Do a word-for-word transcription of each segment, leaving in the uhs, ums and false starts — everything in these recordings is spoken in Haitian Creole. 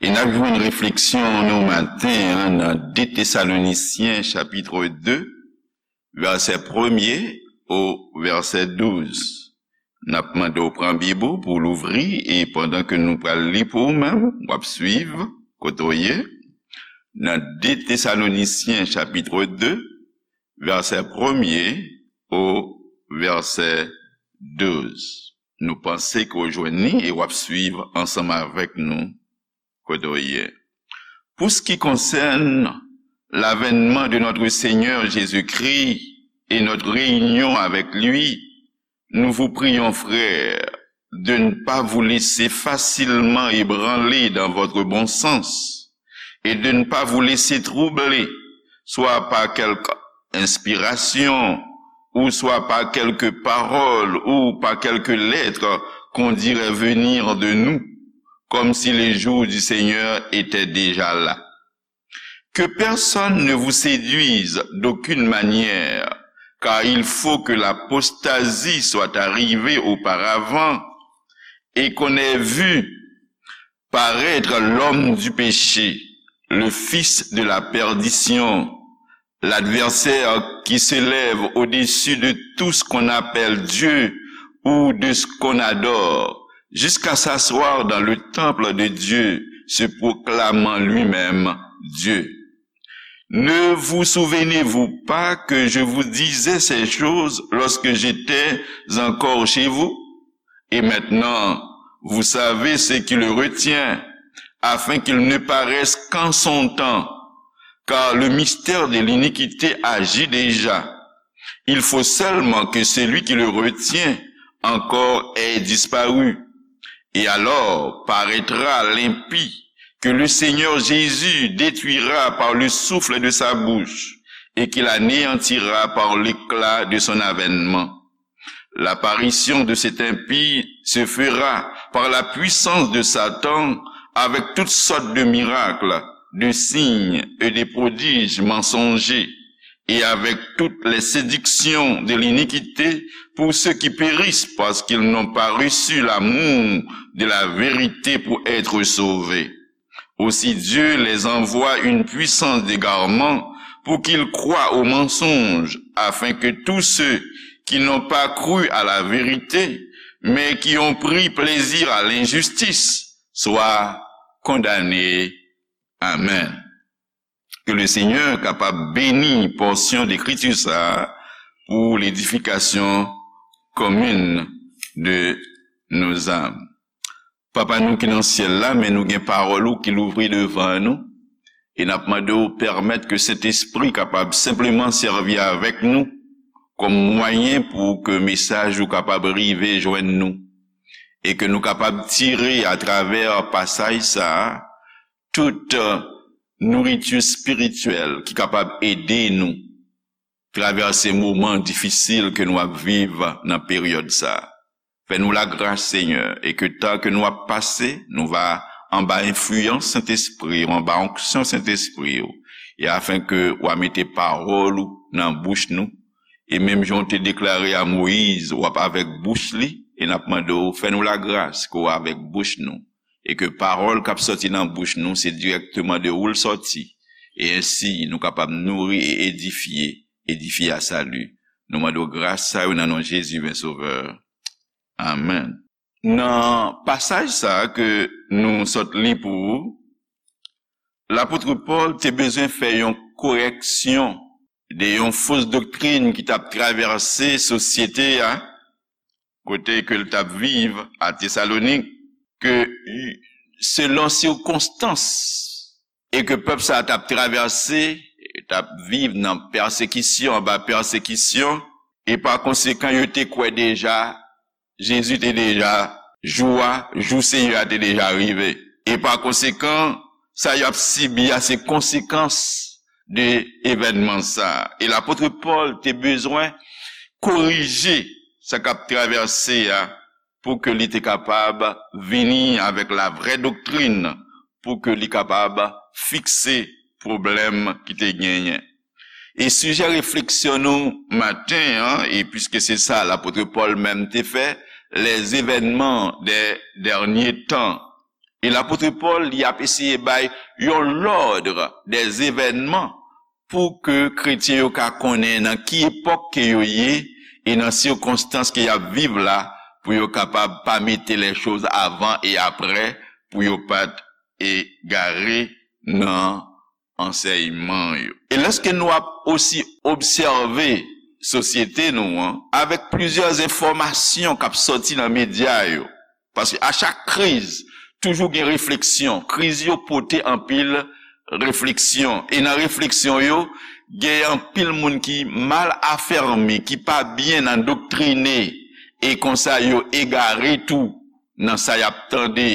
E n ap jwenn refleksyon nou maten an nan de Tesalonisyen chapit de, vèsè premye o vèsè douz. N ap mande w pran Bib ou pou w louvri, e pandan ke nou pral li pou ou menm, w ap swiv kote w ye. Nan de Tesalonisyen chapit de, vèsè premye o vèsè douz. Nou panse ke w jwenn li e w ap swiv ansanm avèk nou kote w ye. Pour ce qui concerne l'avènement de notre Seigneur Jésus-Christ et notre réunion avec lui, nous vous prions, frères, de ne pas vous laisser facilement ébranler dans votre bon sens et de ne pas vous laisser troubler, soit par quelque inspiration, ou soit par quelque parole, ou par quelque lettre qu'on dirait venir de nous, comme si les jours du Seigneur étaient déjà là. Que personne ne vous séduise d'aucune manière, car il faut que l'apostasie soit arrivée auparavant, et qu'on ait vu paraître l'homme du péché, le fils de la perdition, l'adversaire qui s'élève au-dessus de tout ce qu'on appelle Dieu ou de ce qu'on adore, jusqu'à s'asseoir dans le temple de Dieu, se proclamant lui-même Dieu. Ne vous souvenez-vous pas que je vous disais ces choses lorsque j'étais encore chez vous ? Et maintenant, vous savez ce qui le retient, afin qu'il ne paraisse qu'en son temps, car le mystère de l'iniquité agit déjà. Il faut seulement que celui qui le retient encore ait disparu. Et alors paraîtra l'impie, que le Seigneur Jésus détruira par le souffle de sa bouche, et qu'il anéantira par l'éclat de son avènement. L'apparition de cet impie se fera par la puissance de Satan avec toutes sortes de miracles, de signes et de prodiges mensongers, et avec toutes les séductions de l'iniquité pour ceux qui périssent parce qu'ils n'ont pas reçu l'amour de la vérité pour être sauvés. Aussi Dieu les envoie une puissance d'égarement pour qu'ils croient au mensonge, afin que tous ceux qui n'ont pas cru à la vérité, mais qui ont pris plaisir à l'injustice, soient condamnés. Amen. Ke le Senyè kapab beni pòsyon de ekriti sa a pou ledifikasyon komin de nos âmes. Papa nou ki nan syèl la, men nou gen pawòl ou ki louvri devan nou, e n ap mande w pèmèt ke Sentespri kapab senpleman sèvi avèk nou kòm mwayen pou ke mesaj ou kapab rive jwenn nou, e ke nou kapab tire atravè pasaj sa a tout, euh, nouriti espirityèl ki kapab ede nou travèse moman difisil ke nou ap viv nan peryòd sa a. Fè nou lagras, Senyè, e ke tan ke nou ap pase, nou va anba enfliyans Sentespri w, anba onksyon Sentespri w, e afenke w a mete pawòl ou nan bouch nou, e menm jan w te deklare a Moyiz, w ap avèk bouch li, e n ap mande w, fè nou lagras ke w avèk bouch nou, e ke pawòl k ap sòti nan bouch nou, se dirèkteman de ou l sòti, e ensi nou kapab nouri e edifye, edifye a sali. Nou mande w gras sa yo nan non Jezi, ven Sovè. Amèn. Nan pasaj sa a ke nou sot li pou ou, lapot Pòl te bezwen fè yon korèksyon de yon fos doktrin ki t ap travèse sosyete a, kote ke l t ap viv a Tesalonik, ke selon sikonstans e ke pèp sa a t ap travèse, t ap viv nan pèsekisyon, anba pèsekisyon, e pa konsekan, yo te kwè deja, Jezi te deja, jou a, jou Seyè a te deja rive. E pa konsekan, sa y ap sibi a se konsekans de evènman sa a. E lapot Pòl te bezwen korije sa k ap travèse a pou ke li te kapab vini avèk la vrè doktrin, pou ke li kapab fikse pwoblèm ki te genyen. E sijè refleksyon nou maten an, e piske se sa lapot Pòl menm te fè, les événements des derniers temps, E lapot Pòl, li ap eseye bay yon lòd dèzevènman pou ke kretyen yo ka konnen nan ki epòk ke yo ye e nan sikonstans ke y ap viv la, pou yo kapab pa mete lè choz avan e aprè, pou yo pa t egare nan ansèyman yo. E lèske nou ap osi obsève sosyete nou an, avèk plizyè enfòmasyon k ap sòti nan medya yo, paske a chak kriz, toujou gen refleksyon. Kriz yo pote anpil refleksyon. E nan refleksyon yo, gen anpil moun ki mal afèmi, ki pa byen nan doktrine, e konsa yo egare tou nan sa y ap tande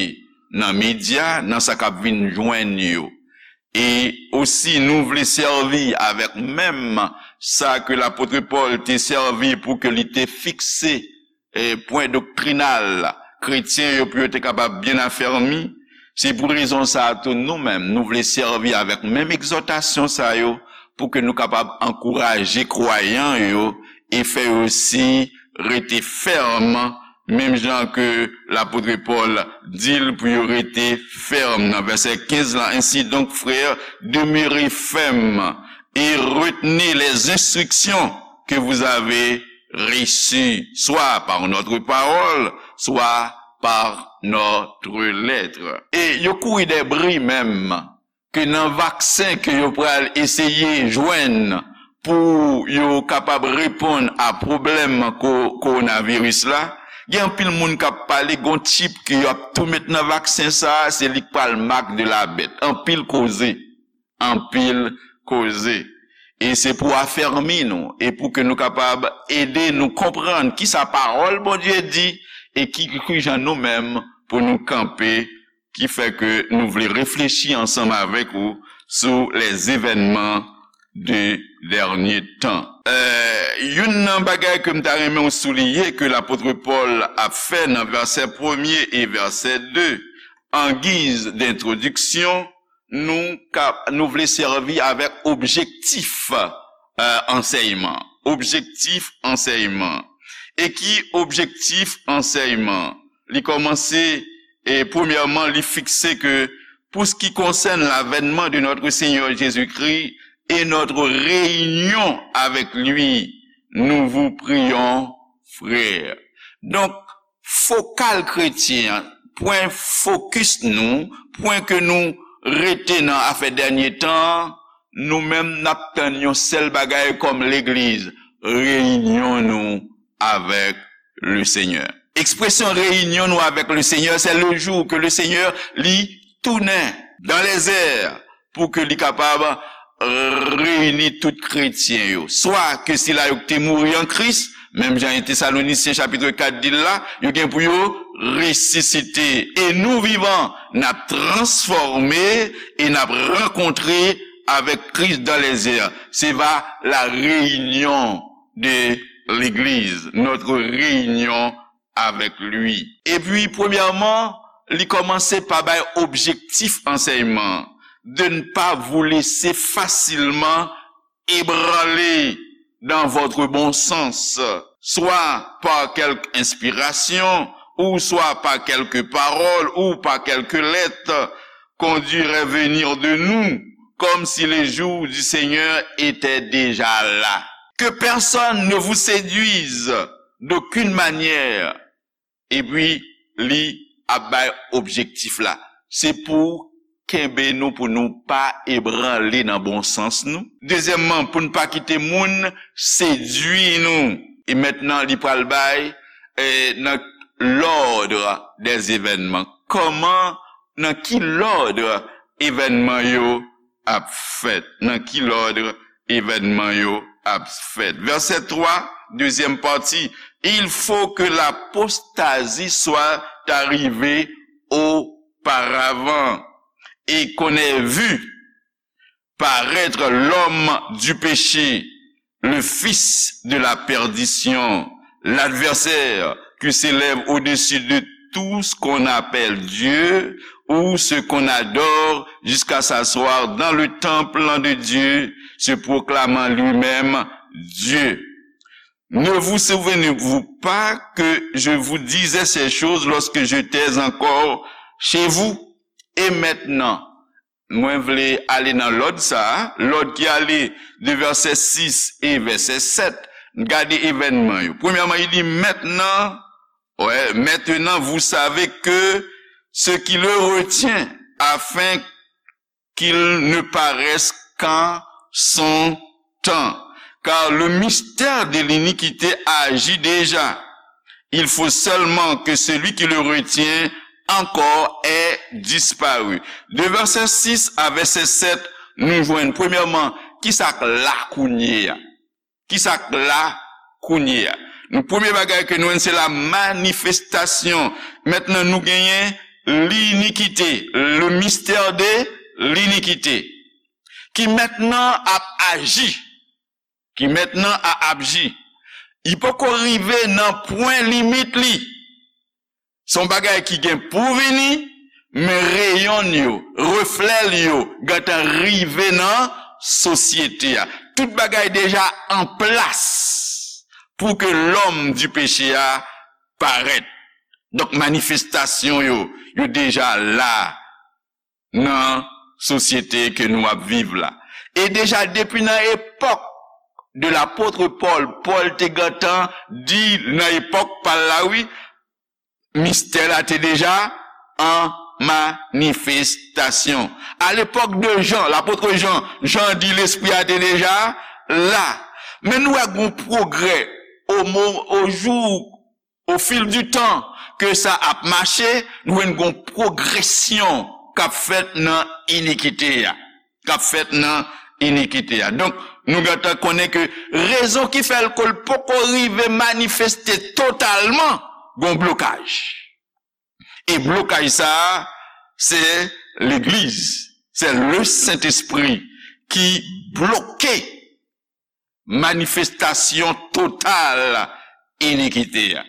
nan medya, nan sa k ap vin jwenn yo. E osi, nou vle sèvi avèk menm sa ke lapot Pòl te sèvi pou ke li te fikse e pwen doktrinal kretyen yo pou yo te kapab byen afèmi. Se pou rezon sa a tou, nou menm, nou vle sèvi avèk menm egzòtasyon sa yo pou ke nou kapab ankouraje kwayan yo e fè yo osi rete fèm, menm jan ke lapot Pòl di l pou yo rete fèm nan vèsè kenz lan. Ainsi donc, frères, demeurez fermes et retenez les instructions que vous avez reçues, soit par notre parole, soit par notre lettre. E yo kouri dè bri menm ke nan vaksen ke yo pral eseye jwenn pou yo kapab reponn a pwoblèm ko-, kowonaviris la, gen anpil moun k ap pale, gon chip ke yo ap tou met nan vaksen sa a, se li k pral marque de la bête. Anpil koze, anpil koze. E se pou afèmi nou, e pou ke nou kapab ede nou konprann kisa pawòl Bondye di, e ki, ki jan nou menm pou nou kanpe, ki fè ke nou vle reflechi ansanm avèk ou sou les événements de dernier temps. Euh, youn nan bagay ke m ta renmen w souliye ke lapot Pòl ap fè nan vèsè premye e vèsè de, an giz dentwodiksyon, nou ka, nou vle sèvi avèk objektif, euh, ansèyman. Objektif ansèyman. E ki objektif ansèyman? Li kòmanse, e premyèman, li fikse ke, pour ce qui concerne l'avènement de notre Seigneur Jésus-Christ et notre réunion avec lui, nous vous prions, frères. Donk, fokal kretyen an, pwen fokis nou, pwen ke nou rete nan afè dènye tan an, nou menm n ap tann yon sèl bagay kòm legliz, reyinyon nou avèk le Seigneur. Ekspresyon reyinyon nou avèk le Seigneur, c'est le jour que le Seigneur li tounen dans les airs pou ke li kapab reyini tout kretyen yo. Swa ke sila yo ki te mouri an Kris, menm jan en Tesalonisyen chapit kat di l la, yo gen pou yo resisite. Et nous vivants, n ap transfòme e n ap rankontre avec Christ dans les airs. Se va la réunion de l'Église, notre réunion avec lui. Epi, premyèman, li kòmanse pa bay objektif ansèyman, de ne pas vous laisser facilement ébranler dans votre bon sens, soit par quelque inspiration, ou soit par quelque parole, ou par quelque lettre, qu'on dût revenir de nous, comme si les jours du Seigneur étaient déjà là. Que personne ne vous séduise d'aucune manière. Epi, li ap bay objektif la. Se pou kenbe nou, pou nou pa ebranle nan bon sans nou. Dezyèmman, pou n pa kite moun sedui nou. E mentnan, li pral bay, eh, nan l'ordre des événements. Kòman, nan ki lòd evènman yo ap fèt? Nan ki lòd evènman yo ap fèt? Vèsè twa, dezyèm pati, il faut que l'apostasie soit arrivée auparavant et qu'on ait vu paraître l'homme du péché, le fils de la perdition, l'adversaire qui s'élève au-dessus de tout ce qu'on appelle Dieu ou ce qu'on adore jusqu'à s'asseoir dans le temple de Dieu, se proclamant lui-même Dieu. Ne vous souvenez-vous pas que je vous disais ces choses lorsque j'étais encore chez vous ? Et maintenant, mwen vle ale nan lòd sa a, lòd ki ale de vèsè sis e vèsè sèt. Gade evènman yo. Premyèman, il dit, maintenant, ouais, maintenant vous savez que ce qui le retient, afin qu'il ne paraisse qu'en son temps. Car le mystère de l'iniquité agit déjà. Il faut seulement que celui qui le retient encore ait disparu. De vèsè sis a vèsè sèt, nou jwenn, premyèman, ki sa k la kounye a? Ki sa k la kounye a? Nou, premye bagay ke nou jwenn, se la manifestasyon. Mentnan, nou genyen linikite, le mystère de l'iniquité, ki mentnan ap aji, ki mentnan a ap aji. Li poko rive nan pwen limit li. Se yon bagay ki gen pou vini, men reyon l yo, reflè l yo, gentan rive nan sosyete a. Tout bagay deja an plas pou ke lòm di peche a parèt. Donk, manifestasyon yo, yo deja la nan sosyete ke nou ap viv la. E deja depi nan epòk de lapot Pòl, Pòl te gentan di nan epòk pa l la, wi, mistè la te deja an manifestasyon. A lepòk de Jan, lapot Jan, Jan di lespri a te deja la. Men nou wè gon pwogrè o mo, o jou, o fil di tan ke sa ap mache, nou wè gon pwogresyon k ap fèt nan inikite a. K ap fèt nan inikite a. Donk, nou gentan konnen ke rezon ki fè l ke l poko rive manifeste totalman, gon blokaj. E blokaj sa a, se legliz, se le Sentespri ki bloke manifestasyon total inikite a.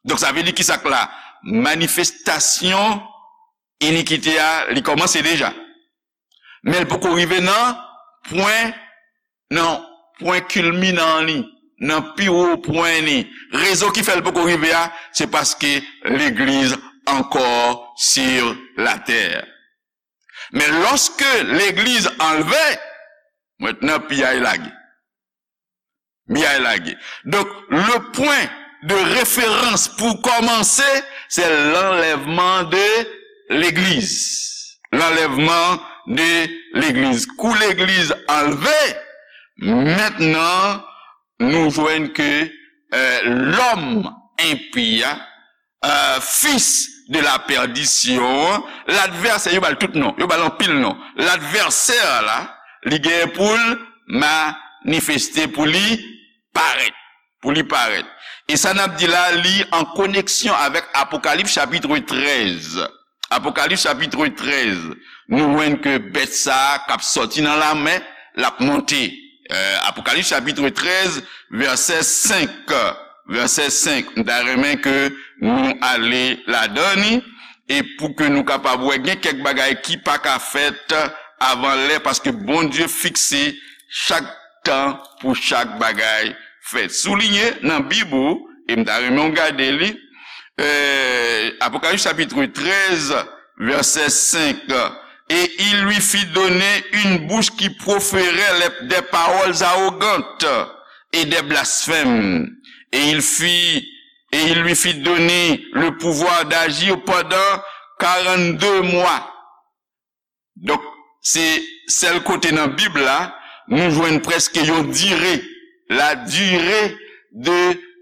Donk, sa vle di ki sa k la? Manifestasyon inikite a, li kòmanse deja. Men l poko rive nan pwen, nan pwen kilminan li, nan pi wo pwen li. Rezon ki fè l poko rive a, se paske legliz ankò sur la terre. Men lòske legliz anlve, mentnan piyay lage. Piyay lage. Donk, le pwen de referans pou kòmanse, se lanlèvman de legliz. Lanlèvman de legliz. Kou legliz anlve, mentnan, nou jwenn ke, euh, lòm enpi a, euh, fils de la perdition, ladvèsè, yo ba l tout non, yo ba l anpil non. Ladvèsè la, li genyen pou l manifeste, pou li parèt, pou li parèt. E sa n ap di la, li an koneksyon avèk Apokalips chapit trèz. Apokalips chapit trèz, nou jwenn ke bèt sa a k ap sòti nan lamè, l ap monte. Euh, Apokalips chapit trèz, vèsè senk. Vèsè senk, m ta renmen ke nou ale ladan li, e pou ke nou kapab wè, gen kèk bagay ki pa ka fèt avan lè, paske Bondye fikse chak tan pou chak bagay fèt. Souliye nan Bib ou, e m ta renmen w gade li, euh, Apocalypse chapitre treize, verset cinq. Et il lui fit donner une bouche qui proférait les- des paroles arrogantes et des blasphèmes. Et il fit, et il lui fit donner le pouvoir d'agir pendant quarante-deux mois. Donk, se sèl kote nan Bib la, nou jwenn prèske yon dire, la dire de,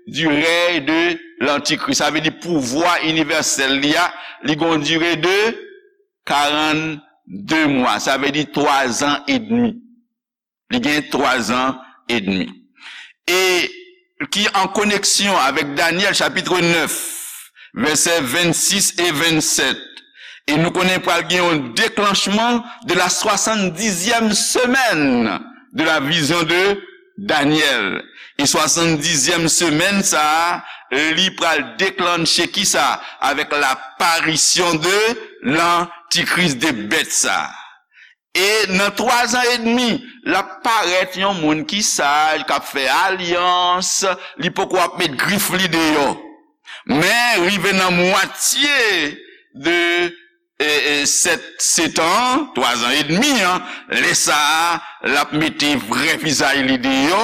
du règne de l'Antichrist. Sa vle di pouvwa inivèsèl li a, li gon dire de quarante-deux mwa. Sa vle di twa zan edmi. Li gen twa zan edmi. E ki an koneksyon avèk Daniel chapitre neuf, verset vingt-six et vingt-sept. E nou konnen pral gen yon déclenchement de la soixante-dixième semaine de la vision de Daniel. E soixante-dixième semaine sa a, li pral déclencher ki sa? Avec l'apparition de l'antichrist, de bèt sa a. E nan twa zan edmi, l ap parèt yon moun ki saj, k ap fè alyans, li poko ap met grif li deyò. Men, rive nan mwatye de e, e, sèt, sèt an, twa zan edmi an, lè sa a, l ap mete vrè vizaj li deyò,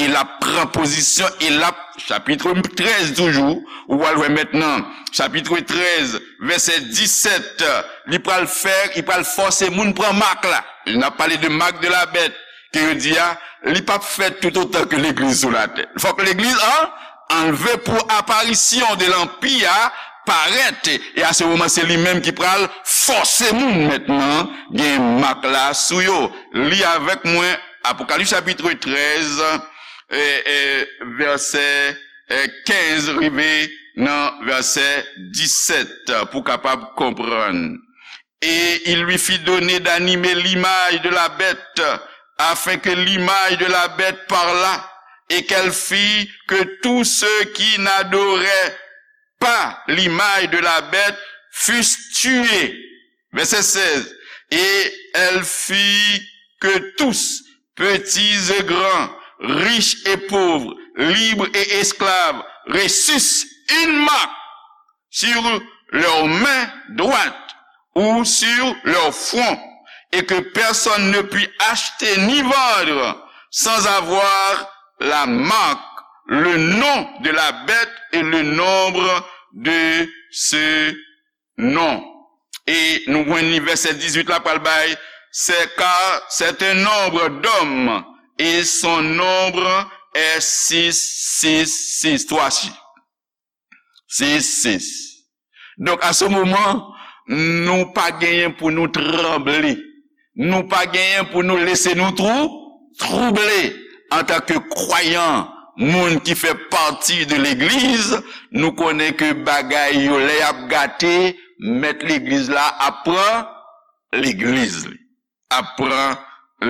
e l ap pran pozisyon, e l ap, chapit trèz toujou, ou pral wè mentnan, chapit trèz, vèsè disèt, li pral fè, li pral fòse moun pran mak la. N ap pale de marque de la bête, ke yo di a, li p ap fèt toutotan ke legliz sou latè. Fòk legliz an anlve pou aparisyon de lanpi a parèt. E a se moman, se li menm ki pral fòse moun mentnan gen mak la sou yo. Li avèk mwen Apokalips chapit trèz, e, e, vèsè, e, kenz rive nan vèsè disèt pou w kapab konprann. Et il lui fit donner d'animer l'image de la bête, afin que l'image de la bête parlât, et qu'elle fît que tous ceux qui n'adoraient pas l'image de la bête fussent tués. Verset seize. Et elle fit que tous, petits et grands, riches et pauvres, libres et esclaves, reçussent une marque sur leur main droite ou sur leur front, et que personne ne put acheter ni vendre sans avoir la marque, le nom de la bête et le nombre de ce nom. E nou jwenn li vèsè dizuit la pral bay, c'est car c'est un nombre d'hommes et son nombre est six six six, twa chif. Sis, sis. Donk, a se moman, nou pa genyen pou nou tranble. Nou pa genyen pou nou lese nou twou-, twouble. Antanke kwayan, moun ki fè pati de legliz, nou konnen ke bagay yo, lè y ap gate, mèt legliz la ap pran legliz li. Ap pran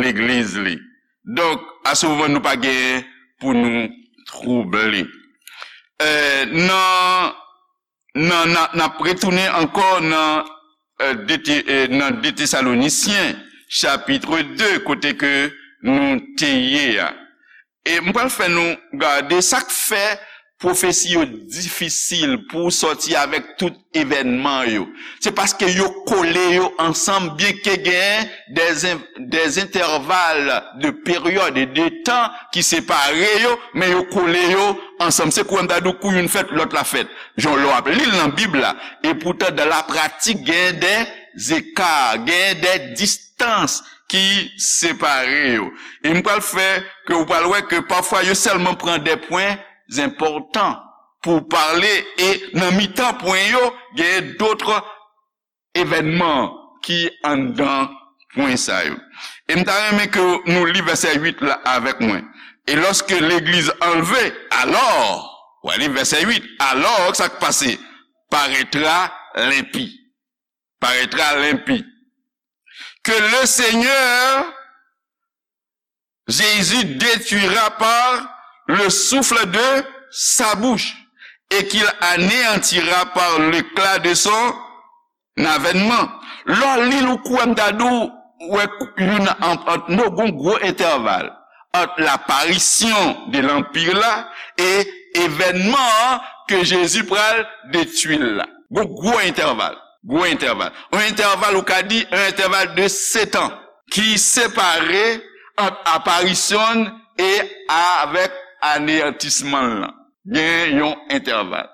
legliz li. Donk, a se moman nou pa genyen pou nou twouble. E, nan, nan, nan, n ap retounen ankò nan, e, de Te-, e, nan de Tesalonisyen, chapit de, kote ke nou te ye a. E m pral fè nou gade sa k fè pwofesi yo difisil pou w sòti avèk tout evènman yo. Se paske yo kole yo ansanm, byenke gen des in-, des intervalle de période et de temps ki separe yo, men yo kole yo ansanm. Se kou m ta di w kou youn fèt, lòt la fèt. Jan lè w ap li l nan Bib la, e poutan, dans la pratique, gen de zeka, gen de distans ki separe yo. E m pral fè ke ou pral wè ke pafwa yo sèlman pran de pwen enpòtan pou pale, e nan mitan pwen yo, gen dòt evènman ki anndan pwen sa yo. E m ta renmen ke nou li vèsè uit la avèk mwen. Et lorsque l'Église enlevée, alors, w a li vèsè uit, alors, sa k pase? Paraîtra l'impie. Paraîtra l'impie. Que le Seigneur Jésus détruira par le souffle de sa bouche, et qu'il anéantira par l'éclat de son avènman. Lè w li l, ou kwè m ta di w, wè youn ant, ant nou gon gwo entèval ant l'apparition de l'Empire la e evènman an ke Jezi pral detwi l la. Gon gwo entèval. Gwo entèval. Yon entèval, ou ka di, yon entèval de sèt an ki separe ant aparisyon l e avèk aneyantisman l lan. Gen yon entèval.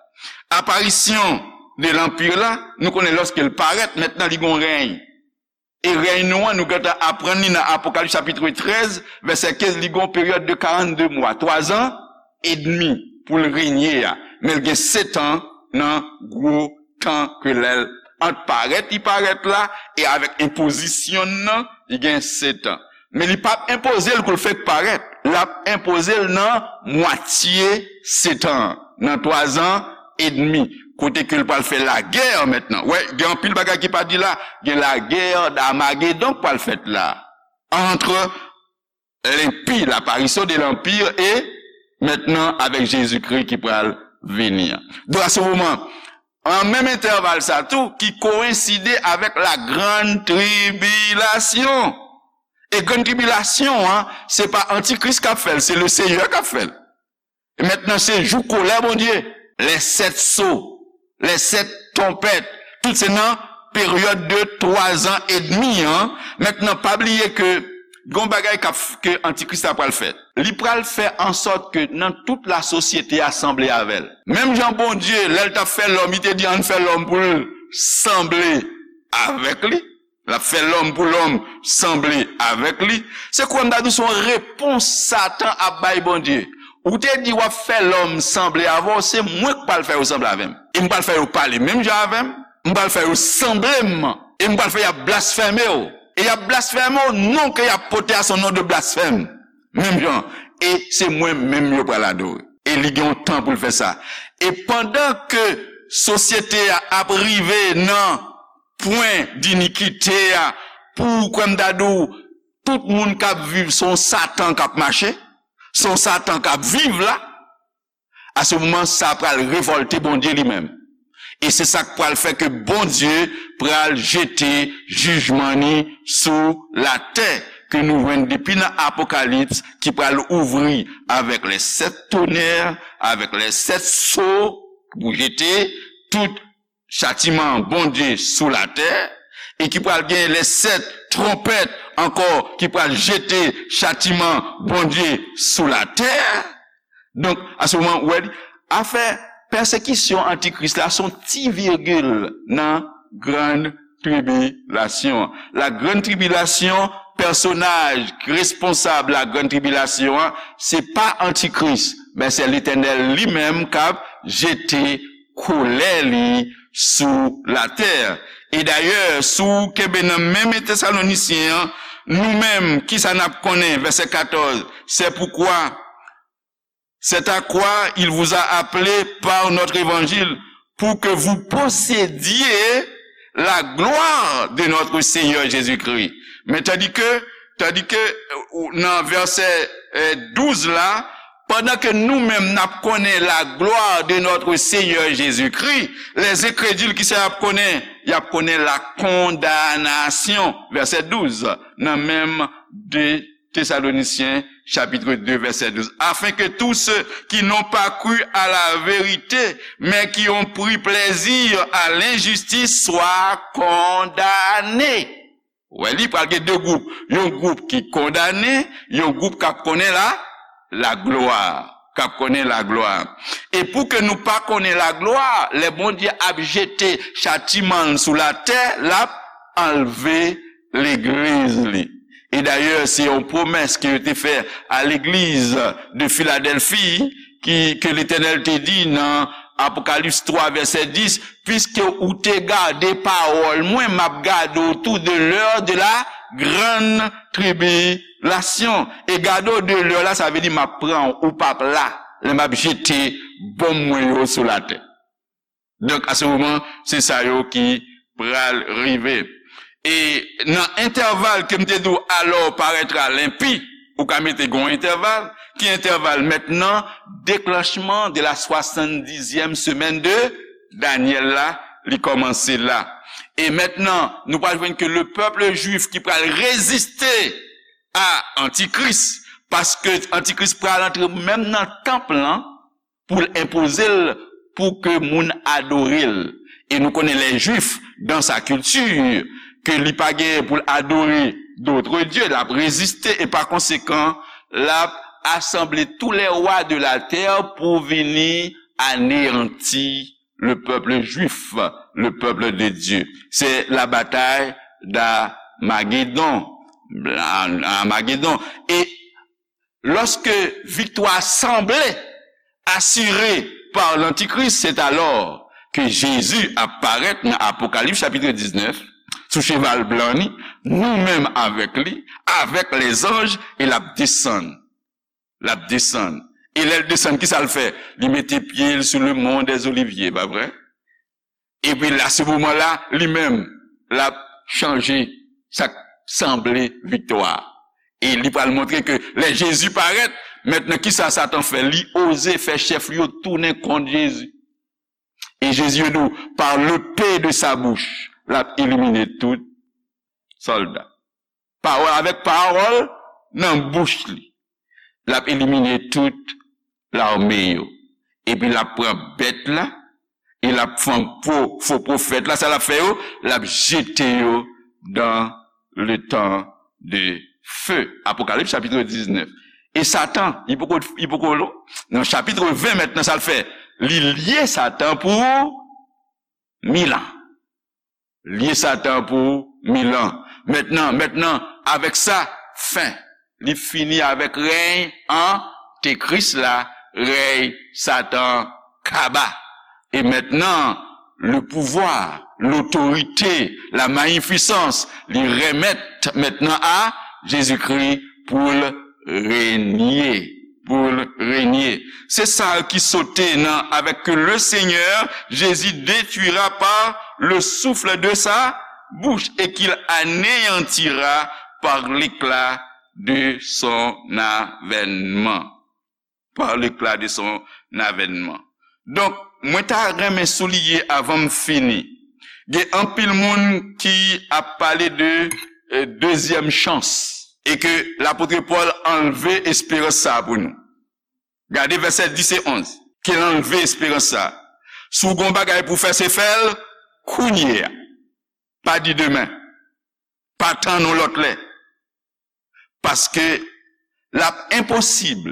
Aparisyon de lanpi la, nou konnen lòske l parèt, mentnan li gon rèy. E rèy nou an, nou gentan aprann li nan Apokalips chapit trèz, vèsè kenz, li gon peryòd de karannde mwa, twa zan edmi pou l renye a. Men l gen sèt an nan gwo tan ke lè l ant parèt, li parèt la, e avèk enpozisyon l nan, li gen sèt an. Men li p ap enpoze l kou l fèk parèt. L ap enpoze l nan mwatye sèt an, nan twa zan edmi, kote ke l pral fè lagè mentnan. Wè, gen anpil bagay ki pa di la. Gen lagè d'Armagedon k pral fèt la. Entre l'impie, l'apparition de l'Empire, e mentnan avèk Jezikri ki pral vini an. Donk, a se moman, an menm entèval sa tou, ki koyenside avèk la grande tribulation. E grann tribilasyon an, se pa Antikris k ap fè l, se le Seyè k ap fè l. E mentnan, se jou kolè Bondye. Les sept sceaux, les sept trompettes, tout se nan peryòd de twa zan edmi an. Mentnan, pa bliye ke gon bagay k ap, ke Antikris la pral fè. Li pral fè an sòt ke nan tout lasosyete a sanble avè l. Menm jan Bondye, lè l t ap fè lòm, li te di, "Ann fè lòm pou l sanble avèk li." L ap fè lòm pou lòm sanble avèk li. Se kwè m ta di w se yon repons Satan ap bay Bondye. Ou te di w ap fè lòm sanble avè w, se mwen k pral fè yo sanble avè m. E m pral fè yo pale menm jan avè m. M pral fè yo sanble m. E m pral fè y ap blasfeme w. E y ap blasfeme w, non ke y ap pote a se yon non de blasfèm. Menm jan. E se mwen menm yo pral adore. E li gen yon tan pou l fè sa. E pandan ke sosyete a ap rive nan pwen dinikite a, pou kwè m ta di w, tout moun k ap viv, se yon Satan k ap mache, se yon Satan k ap viv la, a se moman sa pral revòlte Bondye li menm. E se sa k pral fè ke Bondye pral jete jijman ni sou latè, ke nou jwenn depi nan Apokalips, ki pral ouvri avèk les sept tonnerres, avèk les sept sceaux, pou jete tout chatiman Bondye sou latè, e ki pral gen les sept trompèt ankò, ki pral jete chatiman Bondye sou latè. Donk, a se moman, ou wè, afè pèsekisyon Antikris la se yon ti virgil nan grann tribilasyon. La grande tribulation, pèsonaj ki responsab la grande tribulation an, se pa Antikris, men se Letènèl li menm k ap jete kolè li sou latè. E dayè, si w kenbe nan menm Tesalonisyen an, nou menm, kisa n ap konnen? Vèsè katòz, c'est pourquoi, c'est à quoi il vous a appelé par notre évangile, pour que vous possédiez la gloire de notre Seigneur Jésus-Christ. Men tandi ke, tandi ke, euh, nan vèsè, euh, douz la, pandan ke nou menm n ap konnen la gloire de notre Seigneur Jésus-Christ, les incrédules, kisa y ap konnen? Y ap konnen la condamnation. Vèsè douz, nan menm de Thessaloniciens, chapitre deux, verset douze, afin que tous ceux qui n'ont pas cru à la vérité, mais qui ont pris plaisir à l'injustice soient condamnés. Wè, li pral gen de gwoup. Yon gwoup ki kondane, yon gwoup k ap konnen la, laglwa. K ap konnen laglwa. E pou ke nou pa konnen laglwa, lè Bondye ap jete chatiman l sou latè, l ap anlve legliz li. E dayè, se yon pwomès ke yo te fè a legliz de Filadèlfi, ki, ke Letènèl te di nan Apokalips twa, vèsè dis, "Puisque ou te gade pawòl mwen, m ap gade w tou de l'heure de la grande tribulation." E gade w de l'heure la, sa vle di m ap pran w, ou p ap la, lè m ap jete bonm mwen yo sou latè. Donk, a se moman, se sa yo ki pral rive. E nan entèval ke m te di w, alors paraîtra l'impie, ou ka mete gon entèval, ki entèval mentnan, déclenchement de la soixante-dixième semaine de Daniel la, li kòmanse la. E mentnan, nou pral jwenn ke le peuple juif ki pral reziste a Antikris, paske Antikris pral antre menm nan tanp lan, pou l enpoze l, pou ke moun adore l. E nou konnen les Juifs, dans sa culture, ke li pa gen pou l adore d'autres dieux, l ap reziste, e pa konsekan, l ap asanble tous les rois de la terre pou vini aneyanti le peuple juif, le peuple de Dieu. C'est la bataille d'Armagédon. Armagédon. E lorsque victoire semblait assurée par l'Antichrist, c'est alors que Jésus apparaît dans Apocalypse chapitre dix-neuf, sou cheval blan ni, nou menm avèk li, avèk les anges, e l ap desann. L ap desann. E lè l desann, kisa l fè? Li mete pye l sou le mont des Oliviers, pa vre? Epi la, se moman la, li menm, l ap chanje sa k sanble viktwa. E li pral montre ke lè Jezi parèt, mentnan kisa Satan fè? Li oze fè chèf li yo tounen kont Jezi. E Jezi di w, par l'épée de sa bouche, l ap elimine tout sòlda. Pawòl, avèk pawòl nan bouch li, l ap elimine tout lame yo. Epi l ap pran bèt la, E l ap fè fo, fo pwofèt la, sa l ap fè yo? L ap jete yo dans le temps de feu. Apokalips chapit diznèf. E Satan, li poko, li poko, nan chapit ven mentnan, sa l fè? Li lye Satan pou mil an. Lye Satan pou mil an. Mentnan, mentnan, avèk sa, fen. Li fini avèk rèy antikris la, rèy Satan kaba. E mentnan, le pouvwa, lotorite, la mayifisans, li remèt mentnan a Jezikri pou l renye, pou l renye. Se sa ki sote nan, avec que le Seigneur Jésus détruira par le souffle de sa bouche et qu'il anéantira par l'éclat de son avènement. Par l'éclat de son avènement. Donk, mwen ta renmen souliye avan m fini. Gen anpil moun ki ap pale de, eh, dezyèm chans. E ke lapot Pòl anlve esperans sa pou nou. Gade vèsè dis e onz. Ke l anlve esperans sa. Si w gen yon bagay pou fè, se fè l kounye a. Pa di demen. Pa tann yon lòt lè. Paske l ap enposib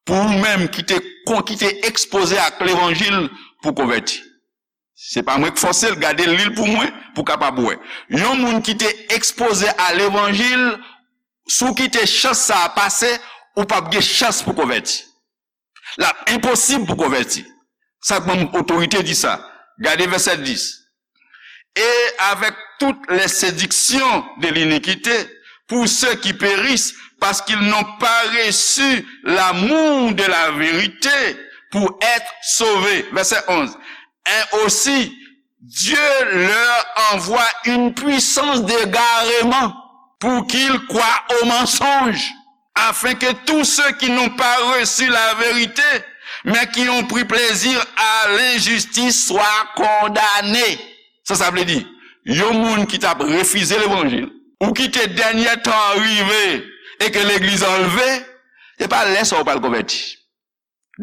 pou ou menm ki te kon, ki te ekspoze ak levanjil pou konvèti. Se pa mwen k fòse l, gade l, li l pou mwen, pou w kapab wè. Yon moun ki te ekspoze a levanjil, si w kite chans sa a pase, ou p ap gen chans pou konvèti. L ap enposib pou konvèti. Sa k ban m otorite di sa. Gade vèsè dis. Et avec toutes les séductions de l'iniquité, pour ceux qui périssent, parce qu'ils n'ont pas reçu l'amour de la vérité pour être sauvés. Vèsè onz. Et aussi, Dieu leur envoie une puissance d'égarement pour qu'ils croient au mensonge, afin que tous ceux qui n'ont pas reçu la vérité, mais qui ont pris plaisir à l'injustice, soient condamnés. Sa sa vle di? Yon moun ki t ap refize levanjil, ou kite dènye tan an rive e ke legliz anlve, se pa lè sa a ou pral konvèti.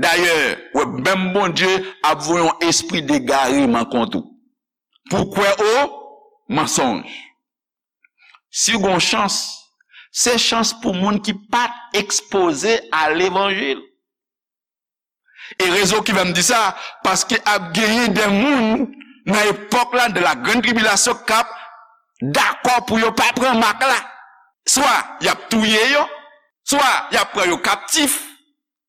Dayè, w ap wè menm Bondye ap voye yon espri degareman kont ou. Pou kwè o mansonj. Si w gen yon chans, se chans pou moun ki pa t ekspoze a levanjil. E rezon ki fè m di sa, paske ap genyen de moun nan epòk la, de la grande tribulation, k ap dakò pou yo pa pran mak la. Swa y ap touye yo, swa y ap pran yo kaptif.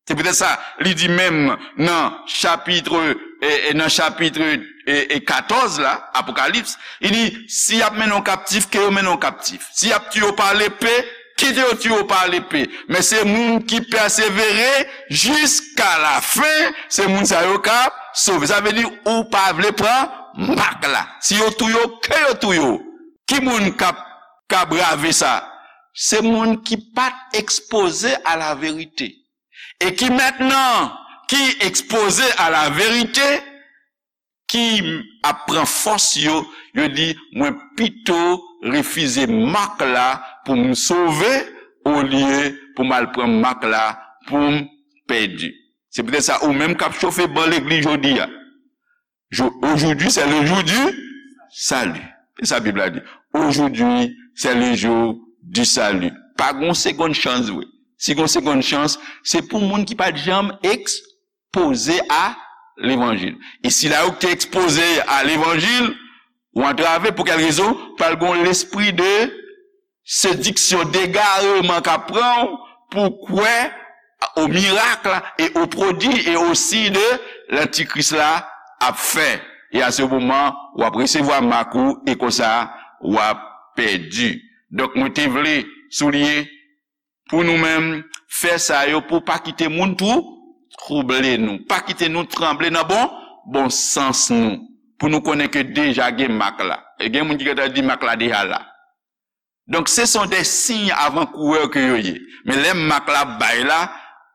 Se poutèt sa, li di menm nan chapit, e, e, nan chapit, e, e, katòz la, Apokalips, li di, si y ap mennen w kaptif, ke yo mennen w kaptif. Si y ap tiye w pa lepe, kite yo tiye w pa lepe. Men se moun ki pèsevere jiska lafen, se moun sa yo k ap sove. Sa vle di, ou pa vle pran mak la. Si yo touye w, ke yo touye w. Ki moun k ap, k ap brave sa? Se moun ki pa t ekspoze a la verite. E ki mentnan, ki ekspoze a la verite, ki ap pran fòs yo, yo di, mwen pito refize mak la pou m sove, olye pou m al pran mak la pou m pèdi. Se poutèt sa, ou menm k ap chofe ban legliz jodi a, Jo-, aujourd'hui, c'est le jour du salut. Se sa Bib la di. Aujourd'hui, c'est le jour du salut. Pa gon segonn chans vre. Si gon segonn chans, se pou moun ki pa t janm ekspoze a levanjil. E sila yo ki te ekspoze a levanjil, ou antrave pou kèl rezon? Pral gon lespri de sediksyon, degareman k ap pran w pou kwè o mirak la e o pwodui e o siy de lantikris la ap fè. E a se moman, w ap resevwa mak ou e konsa, w ap pèdi. Donk, mwen te vle souliye pou nou menm, fè sa yo pou pa kite moun twou-, twouble nou. Pa kite nou tranble nan bon, bon sans nou. Pou nou konnen ke deja gen mak la. E gen moun ki gentan di mak la deja la. Donk, ce sont des signes avant-coureurs ke yo ye. Men lè mak la ap bay la,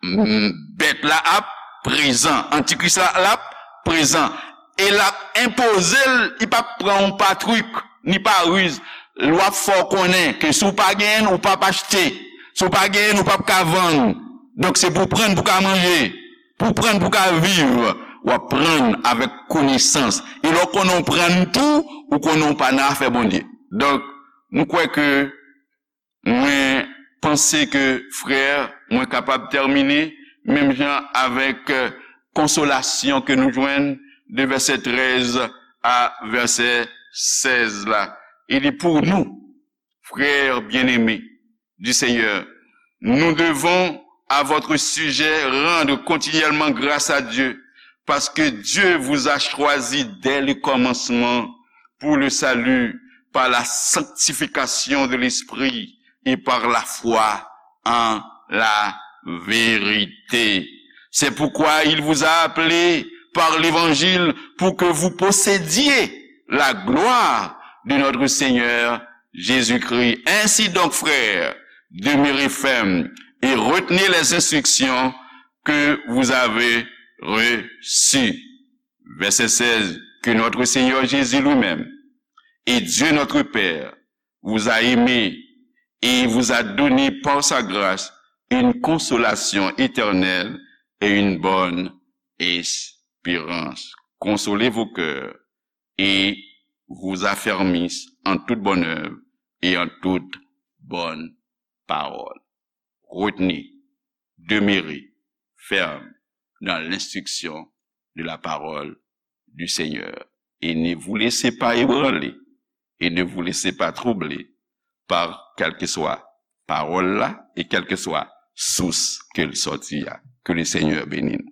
m, bèt la ap prezan. Antikris la, l ap prezan. E l ap enpoze l, li p ap pran yon pa trik, ni pa riz. L ap fè w konnen ke si w pa genyen l, ou p ap achte. Si w pa genyen l, ou p ap ka vann. Donk, se pou w pran l pou w ka manje, pou w pran l pou w ka viv. w aprann avèk konesans. E lè w konnen w aprann tou, ou konnen w pa nan afè Bondye. Donk, m kwè ke mwen panse ke, frè, mwen kapab tèmine menm jan avèk, euh, konsolasyon ke nou jwenn de vèsè trèz a vèsè sèz la. Il dit, pour nous, frères bien-aimés du Seigneur, nous devons à votre sujet rendre continuellement grâce à Dieu, parce que Dieu vous a choisi dès le commencement pour le salut par la sanctification de l'Esprit et par la foi en la vérité. C'est pourquoi il vous a appelé par l'évangile pour que vous possédiez la gloire de notre Seigneur Jésus-Christ. Ainsi donc, frères, demeurez fermes et retenez les instructions que vous avez reçues. Verset seize, que notre Seigneur Jésus lui-même et Dieu notre Père vous a aimés et vous a donné par sa grâce une consolation éternelle et une bonne espérance. Consolez vos cœurs et vous affermissent en toute bonne œuvre et en toute bonne parole. Retenez, demeurez ferme dans l'instruction de la parole du Seigneur. Et ne vous laissez pas ébranler et ne vous laissez pas troubler par quelque soit parole là et quelque soit source ke l sòti a. Que le Seigneur bénisse.